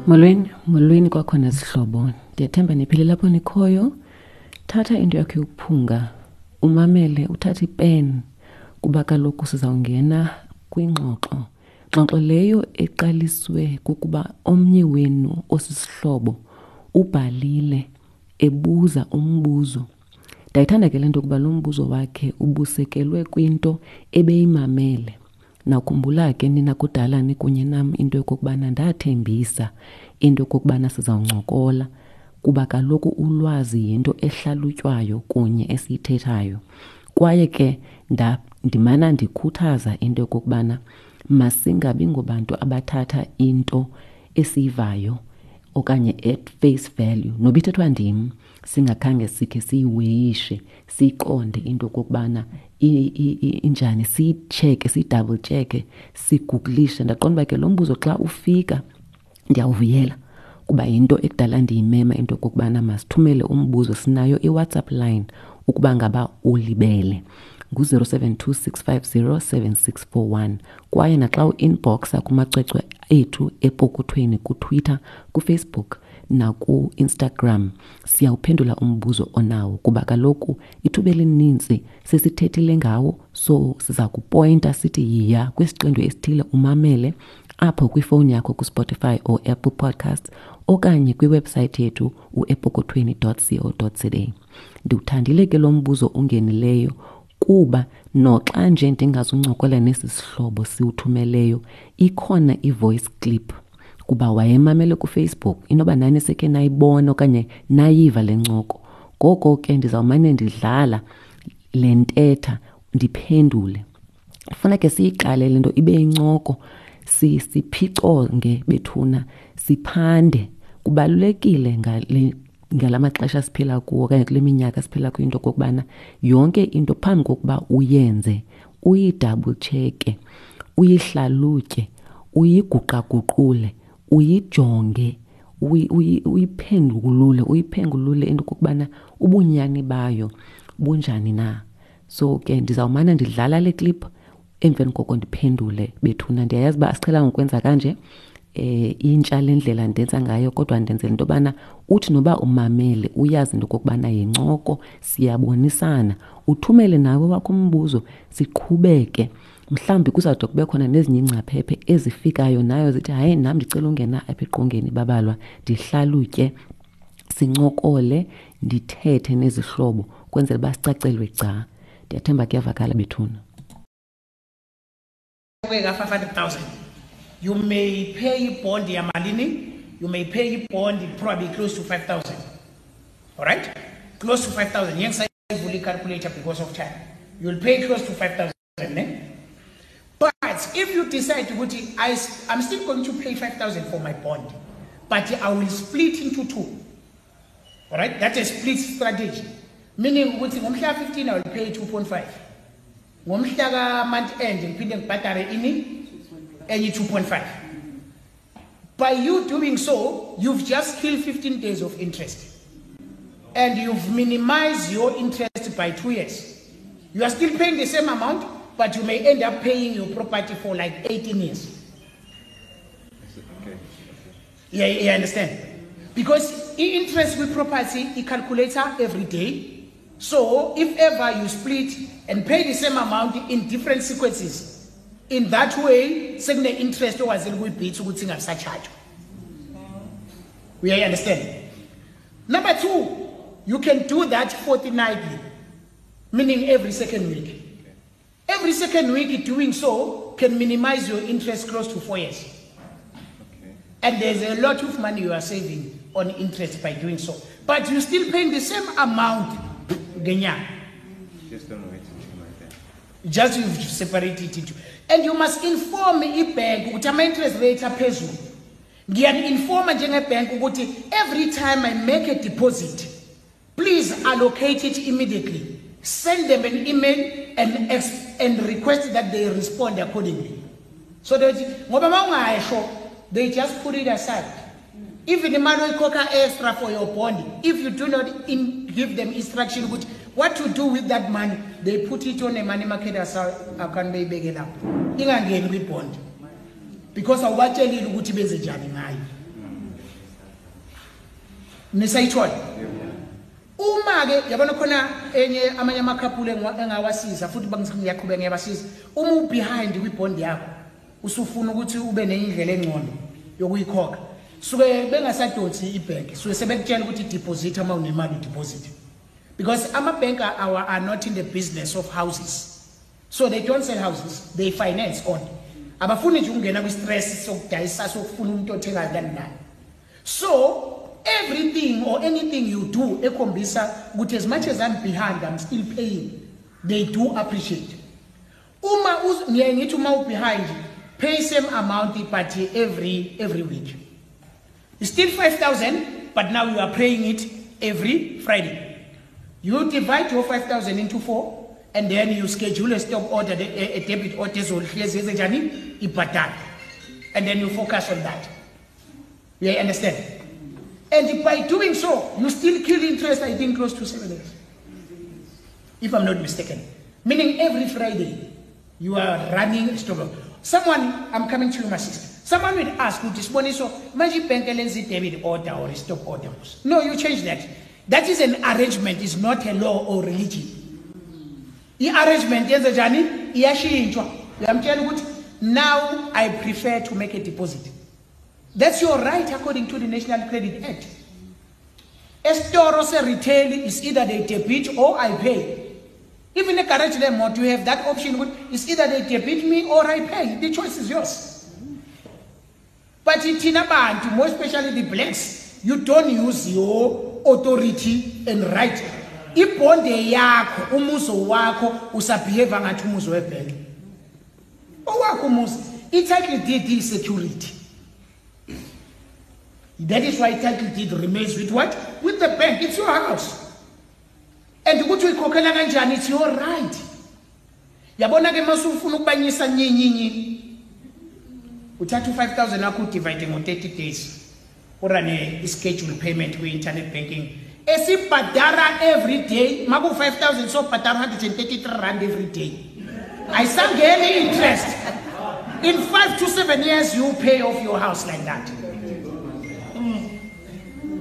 Molweni, molweni kwakhona zihlobo. Ndiyathemba niphile lapho nikhoyo. Thatha into yakho yokuphunga, umamele, uthathe ipen kuba kaloku sizawungena kwingxoxo. Ngxoxo leyo eqaliswe kukuba omnye wenu osisihlobo ubhalile ebuza umbuzo. Ndayithanda ke le nto kuba lo mbuzo wakhe ubusekelwe kwinto ebeyimamele. Nakhumbula ke nina kudala nikunye nam into yokokubana ndathembisa into yokokubana sizawuncokola kuba kaloku ulwazi yinto ehlalutywayo kunye esiyithethayo. Kwaye ke ndimana ndikhuthaza into yokokubana masingabi ngobantu abathatha into esiyivayo okanye at face value noba ithethwa ndim singakhange sikhe siyiweyishe siyiqonde into okokubana injani, siyitsheke, siyidouble tsheke, sigugulishe. Ndaqonda uba ke lo mbuzo xa ufika ndiyawuvuyela kuba yinto ekudala ndiyimema into okokubana masithumele umbuzo. Sinayo iWhatsApp line ukuba ngaba ulibele, ngu-072 650 7641, kwaye naxa u-inboxa kumacwecwe ethu epokothweni kuTwitter, kuFacebook naku-Instagram, siyawuphendula umbuzo onawo kuba kaloku ithuba elininzi sesithethile ngawo. So siza kupointa sithi yiya kwisiqendu esithile umamele apho kwifowuni yakho kuSpotify or Apple Podcasts okanye kwiwebsayithi yethu uepokothweni.co.za. Ndiwuthandile ke lo mbuzo ungenileyo kuba noxa nje ndingazuncokola nesi sihlobo siwuthumeleyo, ikhona i-voice clip kuba wayemamele kuFacebook. Inoba nani sekhe nayibona okanye nayiva le ncoko. Ngoko ke ndizawumane ndidlala le ntetha ndiphendule. Funa ke siyiqale le nto ibe yincoko, siphiconge bethuna, siphande. Kubalulekile ngale ngala maxesha siphila kuwo okanye kule minyaka siphila kuyo into okokubana yonke into phambi kokuba uyenze uyidouble check-e, uyihlalutye, uyiguqaguqule, uyijonge, uyiphendulule, uyiphengulule into okokubana ubunyani bayo bunjani na. So ke ndizawumane ndidlala le clip, emveni koko ndiphendule bethuna. Ndiyayazi uba asiqhelanga ukwenza kanje, intsha le ndlela ndenza ngayo, kodwa ndenzela into yobana uthi noba umamele uyazi into okokubana yincoko, siyabonisana. Uthumele nawe wakho umbuzo, siqhubeke. Mhlawumbi kuzawude kube khona nezinye iingcaphephe ezifikayo nayo zithi hayi, nam ndicela ungena apha eqongeni babalwa, ndihlalutye, sincokole, ndithethe nezihlobo kwenzela uba sicacelwe gca. Ndiyathemba kuyavakala bethuna. Ka 500,000, you may pay bond yamalini? You may pay bond probably close to 5000. All right, close to 5000. Ngiyangisayivula i-calculator because of time. You'll pay close to 5000, ne? But if you decide ukuthi I'm still going to pay 5000 for my bond, but I will split into two, all right, that's a split strategy, meaning ukuthi ngomhla 15 I will pay 2.5, ngomhla ka-month end ngiphinde ngibhadare ini enye 2.5. By you doing so, you've just killed 15 days of interest and you've minimized your interest by 2 years. You are still paying the same amount, but you may end up paying your property for like 18 years. Yeah, you understand? Because i-interest with property i-calculator every day. So if ever you split and pay the same amount in different sequences, in that way sekune interest okwazile ukuyibhitha ukuthi ingasachajwa. We understand? Number two, you can do that fortnightly, meaning every second week. Every second week doing so can minimize your interest close to 4 years. And there's a lot of money you are saving on interest by doing so. But you're still paying the same amount ngenyanga. Just don't wait until like that. Just you've separated it into. And you must inform i-bank ukuthi ama-interest rate aphezulu. Ngiyani-informa njenge-bank ukuthi every time I make a deposit, please allocate it immediately. Send them an email and request that they respond accordingly. So that ngoba mawungasho, they just put it aside. Even imali oyikhokha extra for your bond, if you do not give them instruction ukuthi what to do with that money, they put it on a money market account, beyibeke lapho. Ingangeni kwi-bond. Because awubatshelile ukuthi benze njani ngayo. Nisayithola? Uma ke yabona khona enye amanye amakhaphule engawasiza futhi ngiyaqhubeka ngiyabasiza. Uma ubehind kwibond yakho usufuna ukuthi ube nenye indlela engcono yokuyikhokha, suke bengasadonsi ibhenki, suke sebekutshela ukuthi deposit uma unemali udeposit, because ama-bank are not in the business of houses, so they don't sell houses, they finance on. Abafuni nje ukungena kwi-stress sokudayisa, sokufuna umuntu othengayo nani nani. So everything or anything you do ekhombisa ukuthi as much as I'm behind, I'm still paying, they do appreciate. Uma ngiye ngithi uma ubehind, pay same amount but every week. It's still 5,000, but now you are paying it every Friday. You divide your 5,000 into 4 and then you schedule a stop order, a debit order ezohlezi enzenjani ibhadala, and then you focus on that. You understand? And by doing so, you still kill interest, I think, close to 7 years, if I'm not mistaken. Meaning every Friday, you are running a stop order. Someone, I'm coming to you, my sister. Someone will ask, Siboniso, manje ibhenki lenza i-debit order or a stop order? No, you change that. That is an arrangement, it's not a law or religion. I-arrangement yenze njani? Iyashintshwa. Uyamtshela ukuthi, now I prefer to make a deposit. That's your right according to the National Credit Act. Esitoro se-retail is either they debit or I pay. Even a garage lemoto, you have that option. It's either they debit me or I pay. The choice is yours. But thina bantu, more especially the blacks, you don't use your authority and right. Ibonde yakho, umuzi wakho, usabehave ngathi umuzi webhenki. Owakho umuzi, i-title deed is security. That is why title deed remains with what? With the bank. It's your house. And ukuthi uyikhokhela kanjani, it's your right. Yabona ke masufuna ukubanyisa nyinyinyi, uthatha u-5000 wakho udivide ngo-30 days, urane i-schedule payment kwi-internet banking esibhadara every day. Maku-5000 so bhadara 133 rand every day, ayisangeni interest. In 5 to 7 years you pay off your house like that.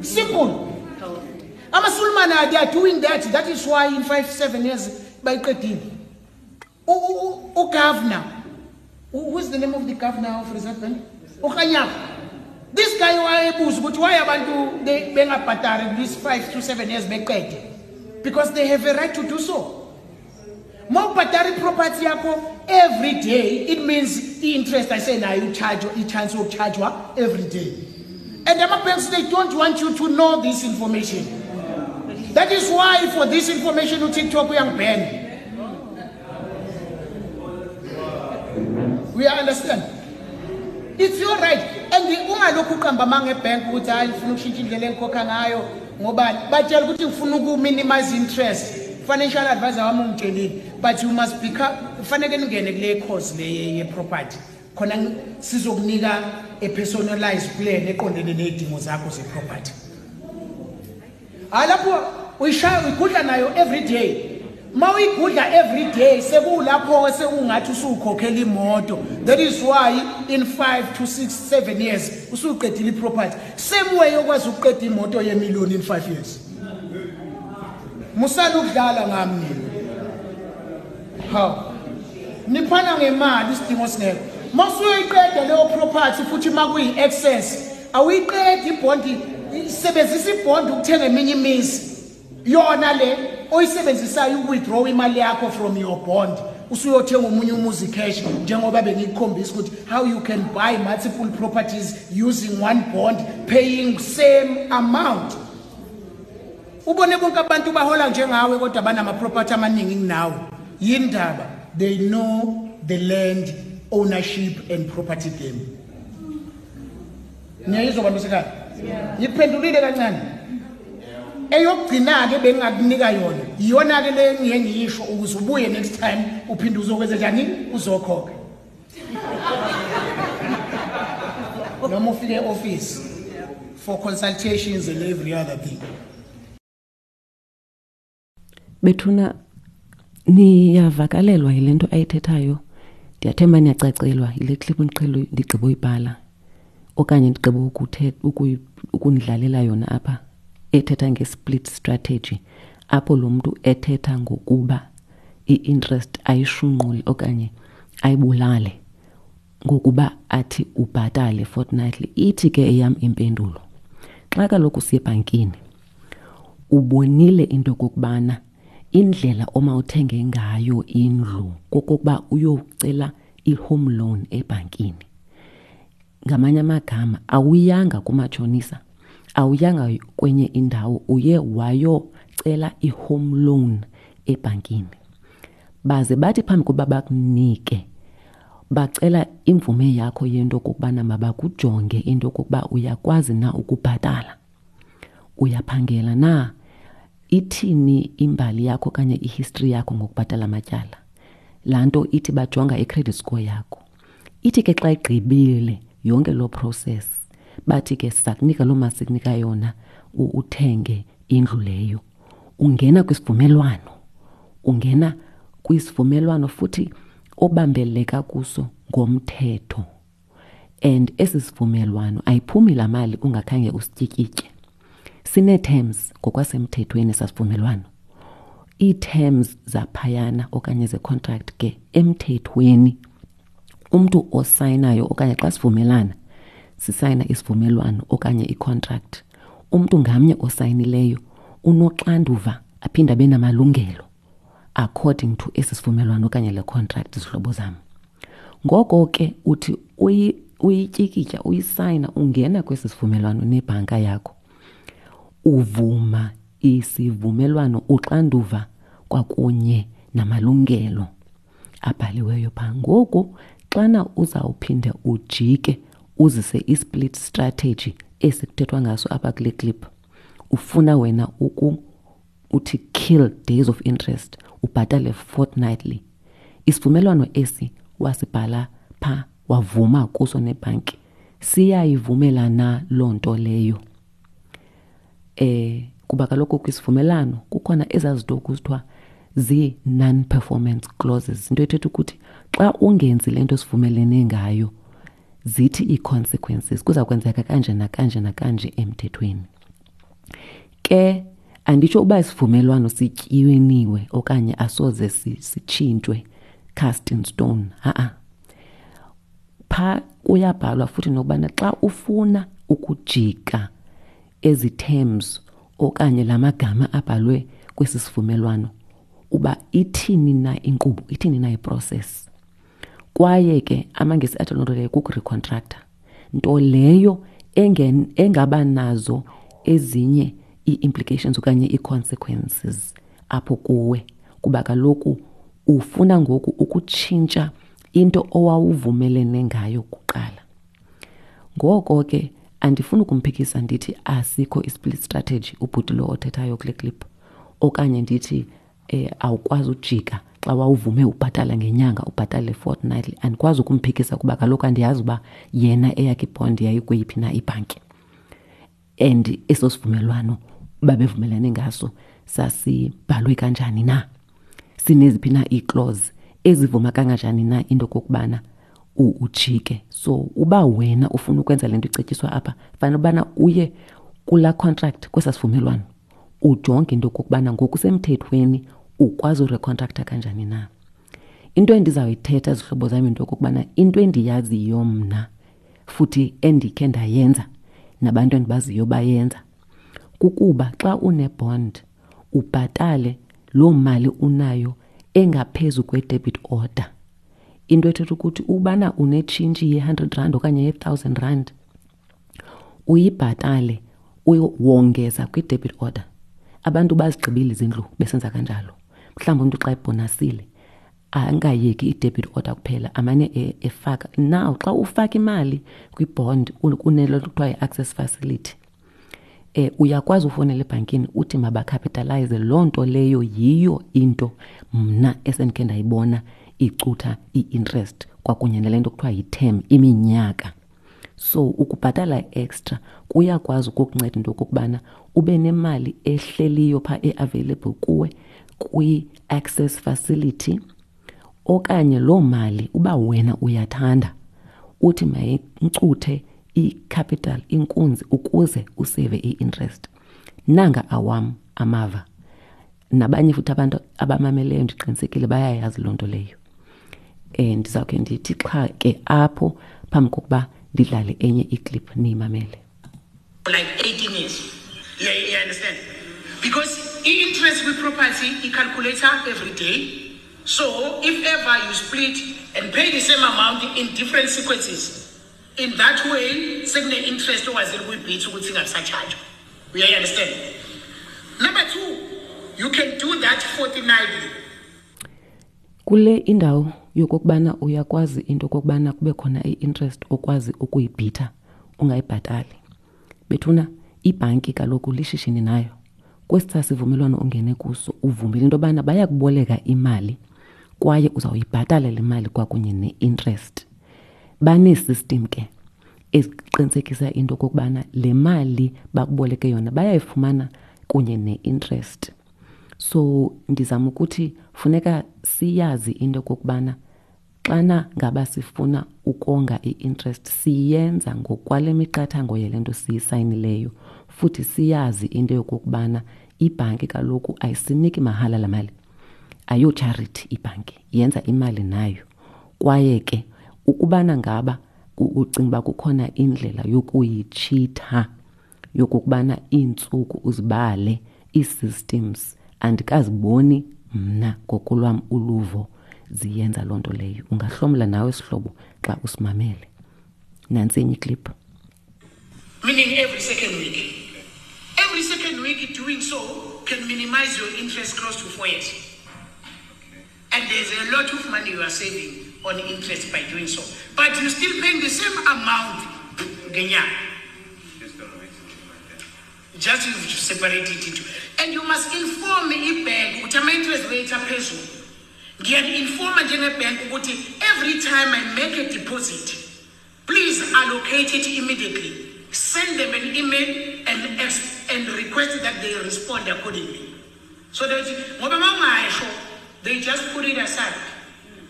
Simple. Amasulumane, they are doing that. That is why in 5 7 years bayiqedile. Ugovernor, who is the name of the governor of Reserve Bank, uKganyago, this guy wayebuza ukuthi why abantu bengabhadari this 5 to 7 years beqede, because they have a right to do so. Mawubhadara iproperty yakho every day, it means i-interest ayisenayo ucharge, i-chance yokuchargewa every day. And ama-banks, they don't want you to know this information. That is why for this information uTikTok uyangiban. We understand? It's your right. And ungalokhu uqamba amanga ebhenki ukuthi hayi, ngifuna ukushintsha indlela engikhokha ngayo, ngobani batshela ukuthi ngifuna uku-minimize interest, financial advisor wami ungitshelile. But you must become, kufanele ningene kule course le ye-property khona sizokunika a personalized plan eqondene nezidingo zakho ze-property. Hayi, lapho uyishaya, uyigudla nayo every day. Ma uyigudla every day, sekulapho sekungathi usukhokhela imoto. That is why in 5 to 6 7 years usuqedile iproperty, same way okwazi ukuqeda imoto yemillion in 5 years. Musana ukudlala ngami nina. Hawu, niphana ngemali isidingo singekho. Masuyiqeda leyo property futhi makuyi-excess, awuyiqedi ibhondi, isebenzisa ibhondi ukuthenga eminye imizi. Yona le oyisebenzisayo uku-withdraw imali yakho from your bond, usuyothenga omunye umuzi cash, njengoba bengikukhombisa ukuthi how you can buy multiple properties using one bond, paying same amount. Ubone bonke abantu bahola njengawe kodwa banama-property amaningi kunawe. Yindaba? They know the land ownership and property game. Niyayizwa, bantu sekhaya? Ngiphendulile kancane. Eyokugcina-ke bengingakunika yona, iyona-ke le ngiye ngiyisho ukuze ubuye next time uphinde uzokwenza njani, uzokhokha noma ufike e-office for consultations and every other thing. Bethuna, niyavakalelwa yile nto ayithethayo? Ndiyathemba niyacacelwa yile clip ndiqhele ndigqiba uyibhala okanye ndigqiba ukunidlalela yona apha. ethetha nge-split strategy, apho lo mntu ethetha ngokuba i-interest ayishunqule okanye ayibulale ngokuba athi ubhatale fortnightly. Ithi ke eyam impendulo, xa kaloku siye ebhankini ubonile into yokokubana indlela omawuthenge ngayo indlu kokokuba uyocela i-home loan ebhankini. Ngamanye amagama, awuyanga kumatshonisa, awuyanga kwenye indawo, uye wayocela i-home loan ebhankini. Baze bathi phambi kokuba bakunike, bacela imvume yakho yento okokubana mabakujonge into okokuba uyakwazi na ukubhatala, uyaphangela na, ithini imbali yakho okanye ihistory yakho ngokubhatala amatyala. Laa nto ithi bajonga i-credit score yakho. Ithi ke xa igqibile yonke loo process, bathi ke siza kunika loo mali sikunika yona uthenge indlu leyo. Ungena kwisivumelwano, ungena kwisivumelwano futhi obambeleka kuso ngomthetho. And esi sivumelwano ayiphumi laa mali ungakhange usityikitye. Sinee-terms ngokwasemthethweni esasivumelwano. Ii-terms zaphayana okanye ze-contract ke emthethweni, umntu osayinayo okanye xa sivumelana sisayina isivumelwano okanye i-contract, umntu ngamnye osayinileyo unoxanduva aphinde abe namalungelo according to esi sivumelwano okanye le contract, zihlobo zam. Ngoko ke uthi uyityikitya, uyisayina, ungena kwesi sivumelwano nebhanka yakho, uvuma isivumelwano, uxanduva kwakunye namalungelo abhaliweyo phaa. Ngoku xana uzawuphinde ujike uzise i-split strategy esikuthethwa ngaso apha kule clip, ufuna wena uthi kill days of interest, ubhatale fortnightly. Isivumelwano esi wasibhala phaa, wavuma kuso nebhanki, siyayivumela na loo nto leyo? Kuba kaloku kwisivumelwano kukhona ezaa zinto kuthiwa zii-non-performance clauses, into ethetha ukuthi xa ungenzi le nto sivumelene ngayo, zithi ii-consequences kuza kwenzeka kanje nakanje nakanje emthethweni. Ke anditsho uba isivumelwano sityiniwe okanye asoze sitshintshwe cast in stone, ha-a. Phaa kuyabhalwa futhi nokubana xa ufuna ukujika ezi terms okanye la magama abhalwe kwesi sivumelwano, uba ithini na inkqubo, ithini na iprocess. Kwaye ke amaNgesi athi loo nto leyo kukurecontracta, nto leyo engaba nazo ezinye ii-implications okanye ii-consequences apho kuwe, kuba kaloku ufuna ngoku ukutshintsha into owawuvumelene ngayo kuqala. Ngoko ke andifuni ukumphikisa ndithi asikho i-split strategy ubhuti lo othethayo kule clip, okanye ndithi awukwazi ujika xa wawuvume ubhatala ngenyanga ubhatale fortnightly. Andikwazi ukumphikisa kuba kaloku andiyazi uba yena eyakhe ibond yayikweyiphi na ibhanki, and eso sivumelwano babevumelene ngaso sasibhalwe kanjani na, sineziphi na ii-clause ezivuma kanganjani na into okokubana ujike. So uba wena ufuna ukwenza le nto icetyiswa apha, fanele ubana uye kulaa contract, kwesaa sivumelwano, ujonge into okokubana ngokusemthethweni ukwazi urecontracta kanjani na. Into endizawuyithetha zihlobo zam into okokubana into endiyaziyo mna futhi endikhe ndayenza nabantu endibaziyo bayenza, kukuba xa une-bond ubhatale loo mali unayo engaphezu kwe-debit order. Into ethetha ukuthi ubana unetshintshi ye-hundred rand okanye ye-thousand rand, uyibhatale wongeza kwi-debit order. Abantu bazigqibile izindlu besenza kanjalo. Mhlawumbi umntu xa ebhonasile angayeki i-debit order kuphela, amane efaka. Now xa ufaka imali kwi-bond kunelo kuthiwa yi-access facility, uyakwazi ufowunela ebhankini uthi mabacapitalize. Loo nto leyo yiyo into mna esendikhe ndayibona icutha i-interest kwakunye nale nto kuthiwa yi-term, iminyaka. So ukubhatala extra kuyakwazi ukukunceda into okokubana ube nemali ehleliyo phaa e-available kuwe kwi-access facility, okanye loo mali uba wena uyathanda uthi mayincuthe i-capital, inkunzi, ukuze usave i-interest. Nanga awam amava. Nabanye futhi abantu abamameleyo ndiqinisekile bayayazi loo nto leyo. Um ndizawukhe ndithi xha ke apho phambi kokuba ndidlale enye iclip niyimamele. Like 18 years. Yeah, you understand? Because i-interest kwi-property i-calculator every day. So if ever you split and pay the same amount in different sequences, in that way, sekune-interest okwazile ukuyibhitha ukuthi ingasatshajwa. You understand? Number two, you can do that fortnightly. Kule indawo yokokubana uyakwazi into okokubana kube khona i-interest okwazi ukuyibhitha ungayibhatali. Bethuna, ibhanki kaloku lishishini nayo. Kwesi sivumelwano ungene kuso uvumile into yobana bayakuboleka imali kwaye uzawuyibhatala le mali kwakunye ne-interest. Banee-system ke eziqinisekisa into okokubana le mali bakuboleke yona bayayifumana kunye ne-interest. So ndizama ukuthi funeka siyazi into okokubana xana ngaba sifuna ukonga i-interest siyenza ngokwale miqathango yale nto siyisayinileyo, futhi siyazi into yokokubana ibhanki kaloku ayisiniki mahala laa mali. Ayo-charity ibhanki, yenza imali nayo. Kwaye ke ukubana ngaba ucinga uba kukhona indlela yokuyitshitha yokokubana iintsuku uzibale ii-systems, andikaziboni mna ngokolwam uluvo ziyenza loo nto leyo. Ungahlomla nawe sihlobo xa usimamele. Nantsi enye iclip. Meaning every second week. Every second week doing so can minimize your interest close to 4 years. And there's a lot of money you are saving on interest by doing so. But you're still paying the same amount. Just don't wait until like that. Just you separate it into. And you must inform the bank ukuthi ama-interest rates aphezulu. Ngiya-informa njenge-bank ukuthi every time I make a deposit, please allocate it immediately. Send them an email and request that they respond accordingly. So that ngoba mawungasho, they just put it aside.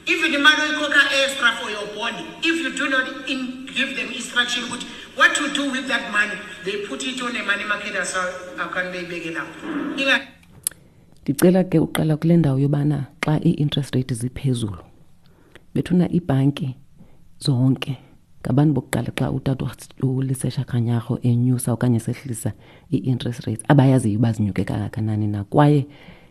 Even the money oyikhokha extra for your bond, if you do not give them instruction ukuthi what to do with that money, they put it on a money market account beyibeke lapho. Ndicela ke uqala kule ndawo yobana xa ii-interest rate ziphezulu, bethuna iibhanki zonke ngabantu bokuqala xa utata uLesesha Kganyago enyusa okanye sehlisa ii-interest rates abayaziyo uba zinyuke kangakanani na, kwaye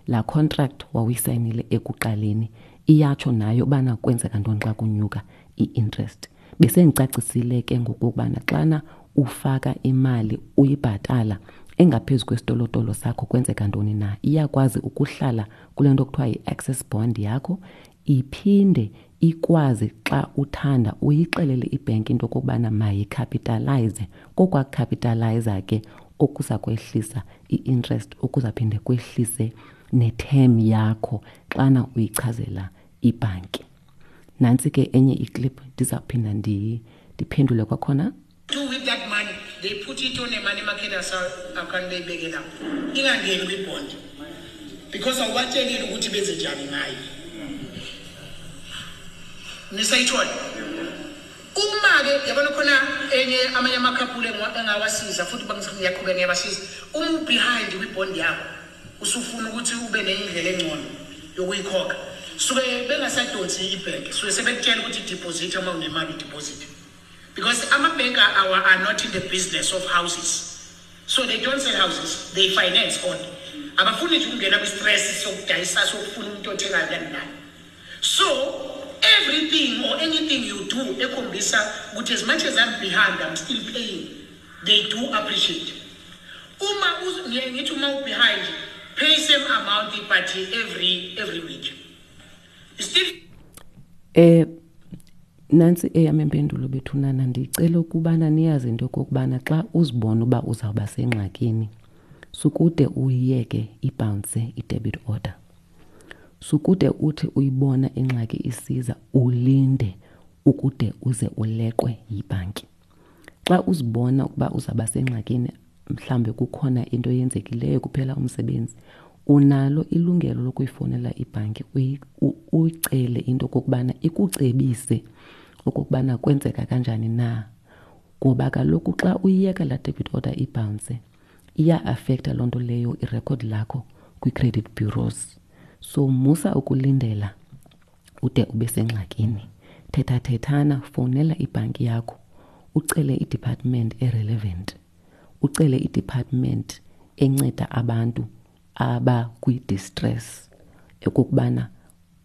laa contract wawuyisayinile ekuqaleni iyatsho nayo ubana kwenzeka ntoni xa kunyuka i-interest. Besendicacisile ke ngokokubana xana ufaka imali uyibhatala engaphezu kwesitolotolo sakho kwenzeka ntoni na, iyakwazi ukuhlala kule nto kuthiwa yi-access bond yakho, iphinde ikwazi xa uthanda uyixelele ibhenki into okokubana mayikhapitalayize. Kokwakukapitalayiza ke okuza kwehlisa i-interest, okuzaphinde kwehlise ne-term yakho xana uyichazela ibhanki. Nantsi ke enye iclip, ndizawuphinda ndiphendule kwakhona. Do with that money, they put it on a money market account beyibeke lapho. Ingangeni kwi-bond. Because awubatshelile ukuthi benze njani ngayo. Nisayithola? Uma ke yabona khona enye amanye amakhaphule engawasiza futhi ngiyaqhubeka ngiyabasiza. Uma u-behind kwi-bond yakho, usufuna ukuthi ube nendlela engcono yokuyikhokha. Suke bengasadonsi ibhenki, suke sebekutshela ukuthi deposit uma unemali deposit. Because ama-bank are not in the business of houses. So they don't sell houses, they finance only. Abafuni nje ukungena kwi-stress sokudayisa sokufuna umuntu othengayo kani nani. So everything or anything you do ekhombisa ukuthi as much as I'm behind, I'm still paying. They do appreciate. Uma ngithi uma u-behind, pay same amount but every week. You still Nantsi eyam impendulo bethunana, ndicela ukubana niyazi into yokokubana xa uzibona uba uzawuba sengxakini, sukude uyiyeke ibhounse i-debit order. Sukude uthi uyibona ingxaki isiza ulinde ukude uze uleqwe yibhanki. Xa uzibona ukuba uzawuba sengxakini, mhlawumbi kukhona into eyenzekileyo kuphela umsebenzi, unalo ilungelo lokuyifowunela ibhanki uyicele into okokubana ikucebise okokubana kwenzeka kanjani na. Ngoba kaloku xa uyiyeka laa debit order ibhounse, Iya-afektha loo nto leyo irekhodi lakho kwii-credit bureaus. So musa ukulindela ude ube sengxakini. Thethathethana, fowunela ibhanki yakho ucele i-department e-relevant, ucele i-department enceda abantu abakwi-distress ekokubana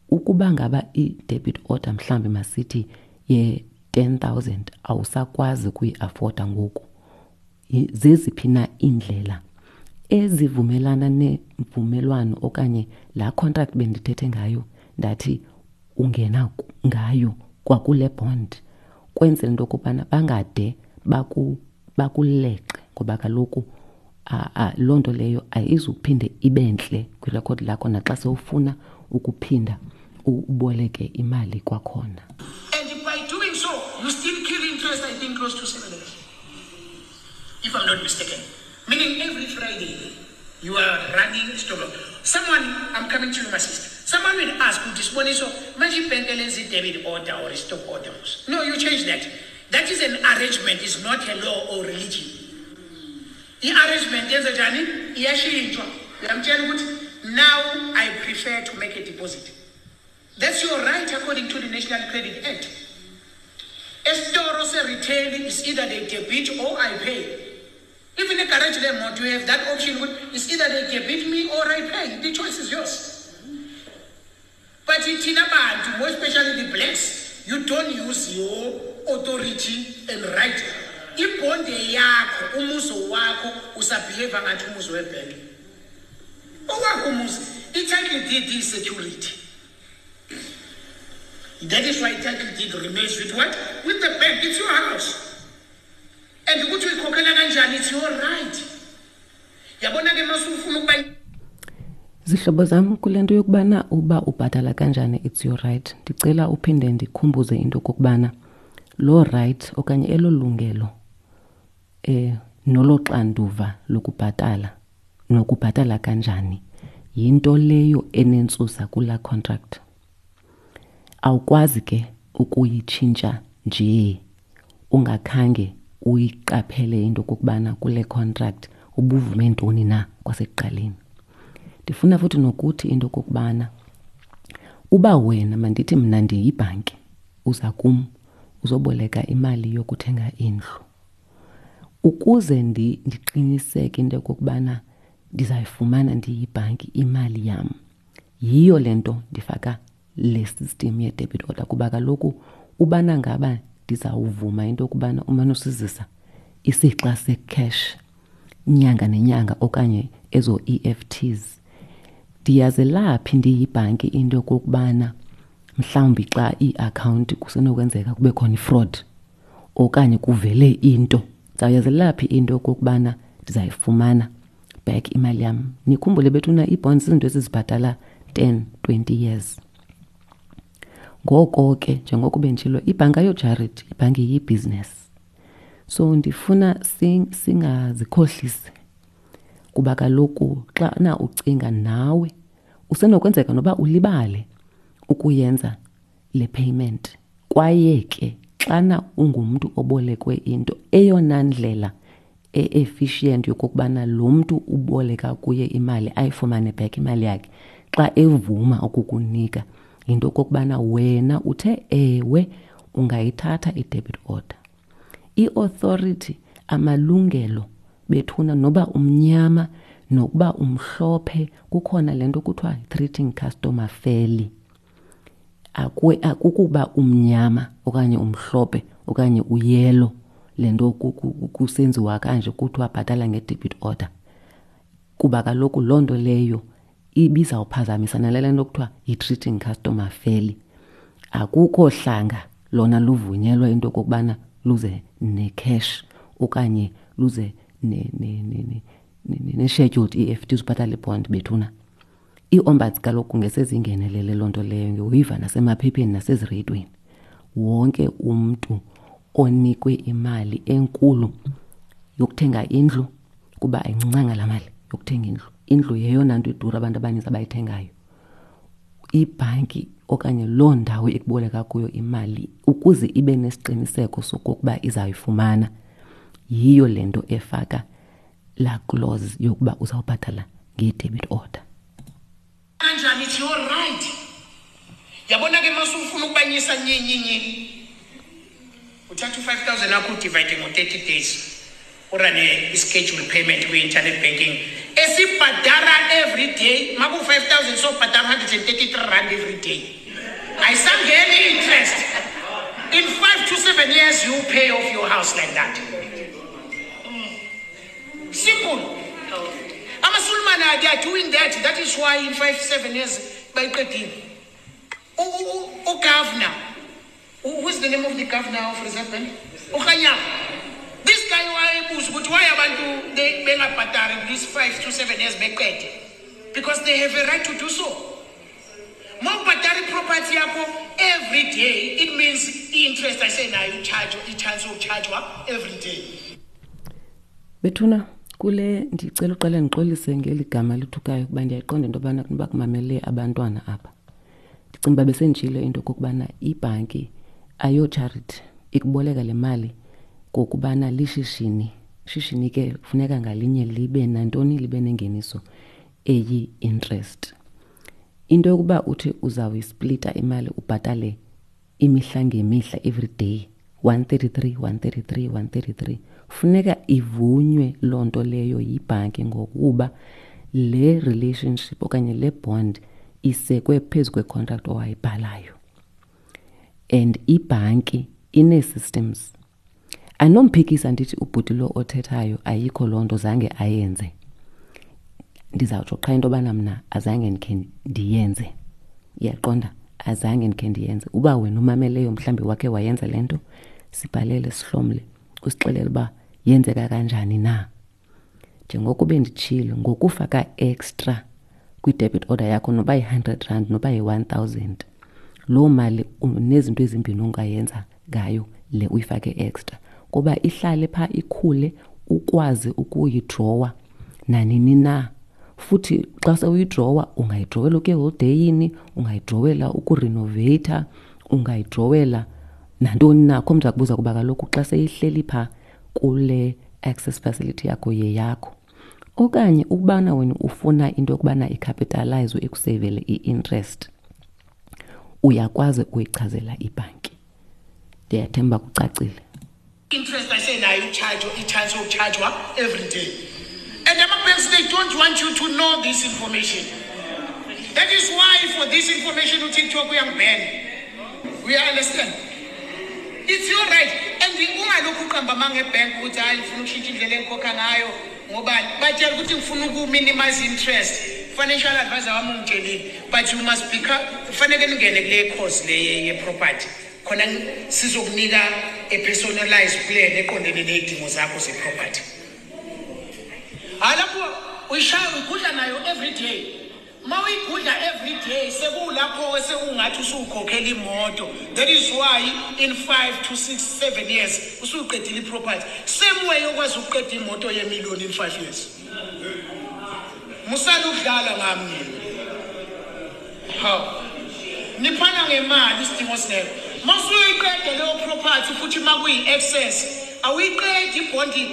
ukuba ngaba i-debit order mhlawumbi masithi ye-10,000 awusakwazi ukuyi-afoda ngoku, zeziphi na iindlela ezivumelana nemvumelwano okanye laa contract bendithethe ngayo ndathi ungena ngayo kwakule bond, kwenzela into yokubana bangade bakuleqe, ngoba kaloku loo nto leyo ayizuphinde ibe ntle kwirekhodi lakho naxa sewufuna ukuphinda uboleke imali kwakhona. And by doing so, you still kill interest, I think, close to 7 years, if I'm not mistaken. Meaning every Friday, you are running stop loss. Someone, I'm coming to you, my sister. Someone will ask, "Siboniso, manje ibhenki lenza i-debit order or a stop order?" No, you change that. That is an arrangement, it's not a law or religion. I-arrangement yenza njani? Iyashintshwa. Uyamtshela ukuthi now I prefer to make a deposit. That's your right according to the National Credit Act. Esitoro se-retail is either they debit or I pay. Even a garage lemoto, you have that option. It's either they debit me or I pay. The choice is yours. But thina bantu, more especially the blacks, you don't use your authority and right. Ibonde yakho, umuzi wakho, usabehave ngathi umuzi webhenki. Owakho umuzi, i-title deed is security. That is why title deed remains with what? With the bank. It's your house. And ukuthi uyikhokhela kanjani, it's your right. Yabona ke masufuna ukuba Zihlobo zam, kule nto yokubana uba ubhatala kanjani it's your right, ndicela uphinde ndikhumbuze into okokubana loo right okanye elo lungelo nolo xanduva lokubhatala nokubhatala kanjani yinto leyo enentsusa kulaa contract. Awukwazi ke ukuyitshintsha nje ungakhange uyiqaphele into okokubana kule contract ubuvume ntoni na kwasekuqaleni. Ndifuna futhi nokuthi into okokubana uba wena, mandithi mna ndiyibhanki, uza kum uzoboleka imali yokuthenga indlu. Ukuze ndiqiniseke into yokokubana ndizayifumana ndiyibhanki imali yam, yiyo le nto ndifaka le system ye-debit order, kuba kaloku ubana ngaba ndizawuvuma into yokubana umane usizisa isixa se-cash inyanga nenyanga okanye ezo EFTs, ndiyazelaphi ndiyibhanki into yokokubana mhlawumbi xa iiakhawunti kusenokwenzeka kube khona i-fraud okanye kuvele into, ndizawuyazelaphi into yokokubana ndizayifumana back imali yam? Nikhumbule bethuna, ii-bonds zizinto esizibhatala 10, 20 years. Ngoko ke njengoko benditshilo, ibhanki ayo-charity, ibhanki yibhizinesi. So ndifuna singazikhohlisi, kuba kaloku xana ucinga nawe usenokwenzeka noba ulibale ukuyenza le payment. Kwaye ke xana ungumntu obolekwe into, eyona ndlela e-efficient yokokubana lo mntu uboleka kuye imali ayifumane back imali yakhe xa evuma ukukunika yinto okokubana wena uthe ewe ungayithatha i-debit order. I-authority, amalungelo bethuna, noba umnyama nokuba umhlophe, kukhona le nto kuthiwa treating customer fairly. Akukuba umnyama okanye umhlophe okanye uyelo le nto kusenziwa kanje kuthiwa bhatala nge-debit order, kuba kaloku loo nto leyo ibizawuphazamisa nale nto kuthiwa yi-treating customer fairly. Akukho hlanga lona luvunyelwa into okokubana luze ne-cash okanye luze ne-scheduled EFT uzibhatala ibond bethuna. Ii-ombuds kaloku ngesezingenelele loo nto leyo, ngiyoyiva nasemaphepheni nasezireyidweni. Wonke umntu onikwe imali enkulu yokuthenga indlu, kuba ayincinanga laa mali yokuthenga indlu, indlu yeyona nto idura abantu abaninzi abayithengayo, ibhanki okanye loo ndawo ekuboleka kuyo imali, ukuze ibe nesiqiniseko sokokuba izayifumana, yiyo le nto efaka laa clause yokuba uzawubhatala nge-debit order. Kanjani? It's your right. Yabona ke, masufuna ukubanyisa nyenyenye, uthatha u-5000 akho, udivide ngo-30 days, urane i-schedule payment kwi-internet banking esibhadara every day. Maku-5000, sobhadara R133 every day, ayisangeni i-interest. In 5 to 7 years you pay off your house like that. Simple. Amasulumane, they are doing that. That is why in 5 7 years bayiqedile. Ugovernor, who is the name of the governor of Reserve Bank, uKganyago, this guy wayebuza ukuthi why abantu bengabhadari this 5 to 7 years beqede, because they have a right to do so. Mawubhadara iproperty yakho every day, it means i-interest ayisenayo i-charge, i-chance yokuchargewa every day. Bethuna, kule ndicela uqale ndixolise ngeli gama lithukayo, kuba ndiyayiqonda into yobana kunoba kumamele abantwana apha. Ndicinga uba besenditshilo into okokubana ibhanki ayo-charity, ikuboleka le mali ngokubana lishishini. Shishini ke kufuneka ngalinye libe nantoni? Libe nengeniso eyi-interest. Into yokuba uthi uzawuyisplita imali, ubhatale imihla ngemihla, every day 133, 133, 133, funeka ivunywe loo nto leyo yibhanki, ngokuba le relationship okanye le bond isekwe phezu kwecontract owayibhalayo, and ibhanki inee-systems. Anomphikisa ndithi ubhuti lo othethayo ayikho loo nto, zange ayenze. Ndizawutsho qha into yobana mna azange ndikhe ndiyenze, iyaqonda, azange ndikhe ndiyenze. Uba wena umameleyo mhlawumbi wakhe wayenza le nto, sibhalele, sihlomle, usixelele uba yenzeka kanjani na. Njengoko benditshilo, ngokufaka extra kwi-debit order yakho, noba yi-R100, noba yi-1000, loo mali nezinto ezimbini ongayenza ngayo le uyifake extra, kuba ihlale phaa, ikhule, ukwazi ukuyidrowa nanini na. Futhi xa sewuyidrowa, ungayidrowela ukuya eholideyini, ungayidrowela ukurenoveyitha, ungayidrowela nantoni na. Akho mntu akubuza, kuba kaloku xa seyihleli phaa kule access facility yakho, yeyakho. Okanye ukubana wena ufuna into yokubana icapitalizwe, ikuseyivele i-interest, uyakwazi ukuyichazela ibhanki. Ndiyathemba kucacile. Interest ayisenayo i-charge, i-chance yokuchargewa every day. And ama-banks, they don't want you to know this information. That is why for this information uTikTok uyangiban. We understand it's your right. And ungalokhu uqamba amanga ebhenki ukuthi hayi, ngifuna ukushintsha indlela engikhokha ngayo. Ngobani? Batshela ukuthi ngifuna uku-minimize interest, financial advisor wami ungitshelile. But you must become, kufanele ningene kule course le ye-property, khona sizokunika a personalized plan eqondene ney'dingo zakho ze-property. Hhayi, lapho uyishaya, uyigudla nayo every day. Ma uyigudla every day, sekulapho sekungathi usukhokhela imoto. That is why in 5 to 6 7 years usuqedile i-property, same way okwazi ukuqeda imoto yemillion in 5 years. Musani ukudlala ngami nina. Hawu, niphana ngemali isidingo singekho. Masuyiqede leyo property, futhi makuyi-excess, awuyiqedi ibhondi,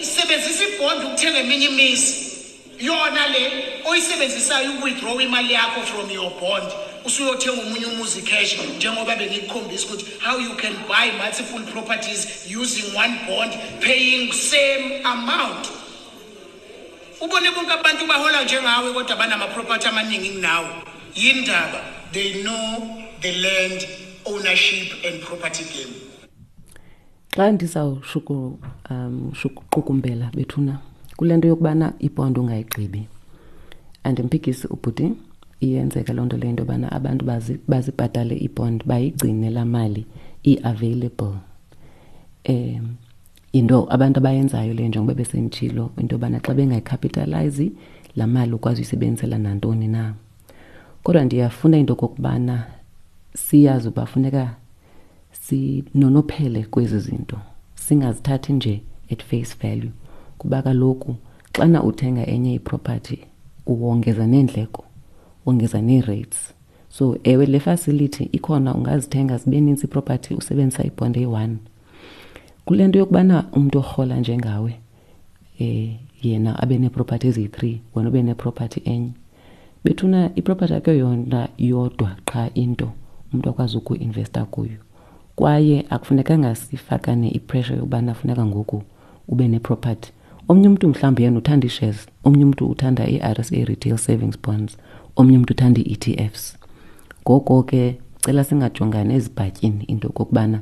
isebenzisa ibhondi ukuthenga eminye imizi. Yona le oyisebenzisayo uku-withdraw imali yakho from your bond, usuyothenga omunye umuzi cash, njengoba bengikukhombisa ukuthi how you can buy multiple properties using one bond, paying same amount. Ubone bonke abantu bahola njengawe kodwa banama-property amaningi kunawe. Yindaba? They know the land ownership and property game. Xa ndizawushuku shuqukumbela bethuna kule nto yokubana ibhondi ungayigqibi, andimphikisi ubhuti, iyenzeka loo nto leyo, into yobana abantu bazibhatale ibhondi, bayigcine laa mali i-available. Yinto abantu abayenzayo leyo, njengoba besenditshilo into yobana xa bengayicapitalize laa mali, ukwazi uyisebenzisela nantoni na. Kodwa ndiyafuna into okokubana siyazi uba funeka sinonophele kwezi zinto, singazithathi nje at face value, kuba kaloku xana uthenga enye iproperty uwongeza neendleko, wongeza nee-rates. So ewe, le facility ikhona, ungazithenga zibe nintsi iproperty usebenzisa ibhondi eyi-one. Kule nto yokubana umntu orhola njengawe Yena abe neepropathi eziyi-3, wena ube nepropathi enye. Bethuna, ipropathi akho yona yodwa qha into umntu akwazi ukuinvesta kuyo, kwaye akufunekanga sifakane ipressure yokubana funeka ngoku ube nepropathi. Omnye umntu mhlawumbi yena uthanda ii-shares, omnye umntu uthanda i-RSA retail savings bonds, omnye umntu uthanda ii-E T Fs. Ngoko ke cela singajongani ezibhatyini into yokokubana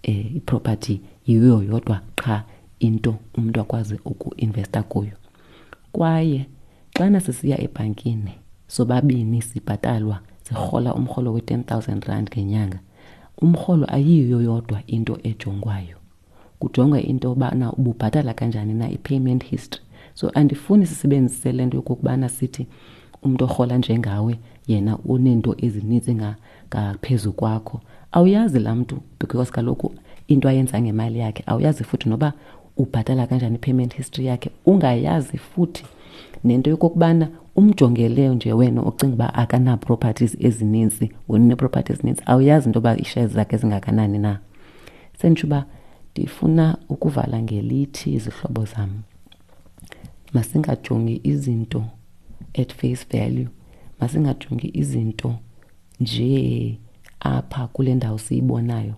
iproperty yiyo yodwa qha into umntu akwazi ukuinvesta kuyo. Kwaye xana sisiya ebhankini sobabini sibhatalwa, sirhola umrholo we-10 000 rand ngenyanga, umrholo ayiyo yodwa into ejongwayo. Kujongwa into yobana ububhatala kanjani na, i-payment history. So andifuni sisebenzise le nto yokokubana sithi umntu orhola njengawe yena uneento ezininzi ngaphezu kwakho. Awuyazi laa mntu, because kaloku into ayenza ngemali yakhe awuyazi, futhi noba ubhatala kanjani, i-payment history yakhe ungayazi, futhi nento yokokubana umjongele nje wena ucinga uba akana-properties ezininzi, wena une-properties ezininzi, awuyazi into yoba ii-shares zakhe zingakanani na. Senditsho uba ndifuna ukuvala ngelithi, izihlobo zam, masingajongi izinto at face value, masingajongi izinto nje apha kule ndawo siyibonayo.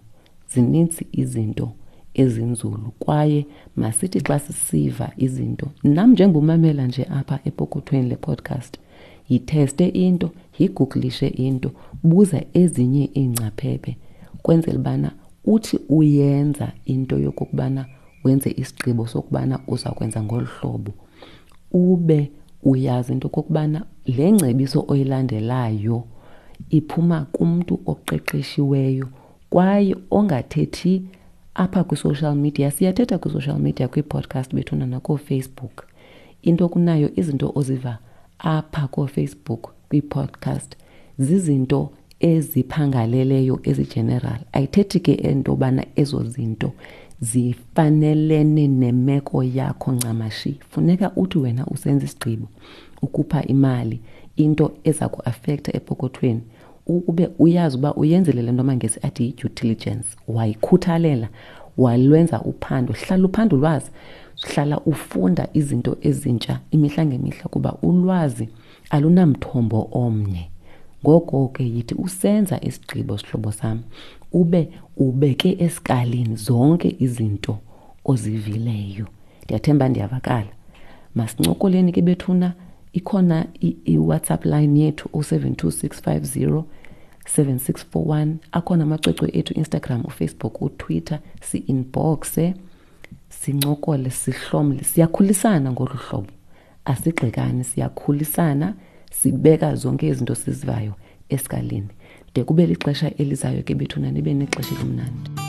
Zininzi izinto ezinzulu, kwaye masithi xa sisiva izinto, nam njengomamela nje apha epokothweni le podcast, yitheste into, yigugulishe into, buza ezinye iingcaphephe, kwenzela ubana uthi uyenza into yokokubana wenze isigqibo sokubana uza kwenza ngolu hlobo, ube uyazi into okokubana le ngcebiso oyilandelayo iphuma kumntu oqeqeshiweyo kwaye ongathethi apha kwi-social media. Siyathetha kwi-social media, kwii-podcast bethuna, nakooFacebook. Into kunayo izinto oziva apha kooFacebook, kwii-podcast, zizinto eziphangaleleyo, ezi-general. Ayithethi ke into yobana ezo zinto zifanelene nemeko yakho ncamashi. Funeka uthi wena usenza isigqibo ukhupha imali, into eza kuafektha epokothweni, ukube uyazi uba uyenzile le nto amaNgesi athi yi-due diligence, wayikhuthalela, walwenza uphando. Hlala uphanda ulwazi, hlala ufunda izinto ezintsha imihla ngemihla, kuba ulwazi alunamthombo omnye. Ngoko ke yithi usenza isigqibo, sihlobo sam, ube ubeke esikalini zonke izinto ozivileyo. Ndiyathemba ndiyavakala. Masincokoleni ke bethuna, ikhona i-WhatsApp line yethu, 072 650 7641. Akhona amacwecwe ethu, Instagram, uFacebook, uTwitter, si-inboxe, sincokole, sihlomle. Siyakhulisana ngolu hlobo, asigxekani, siyakhulisana, sibeka zonke izinto sizivayo esikalini. De kube lixesha elizayo ke bethuna, nibe nexesha elimnandi.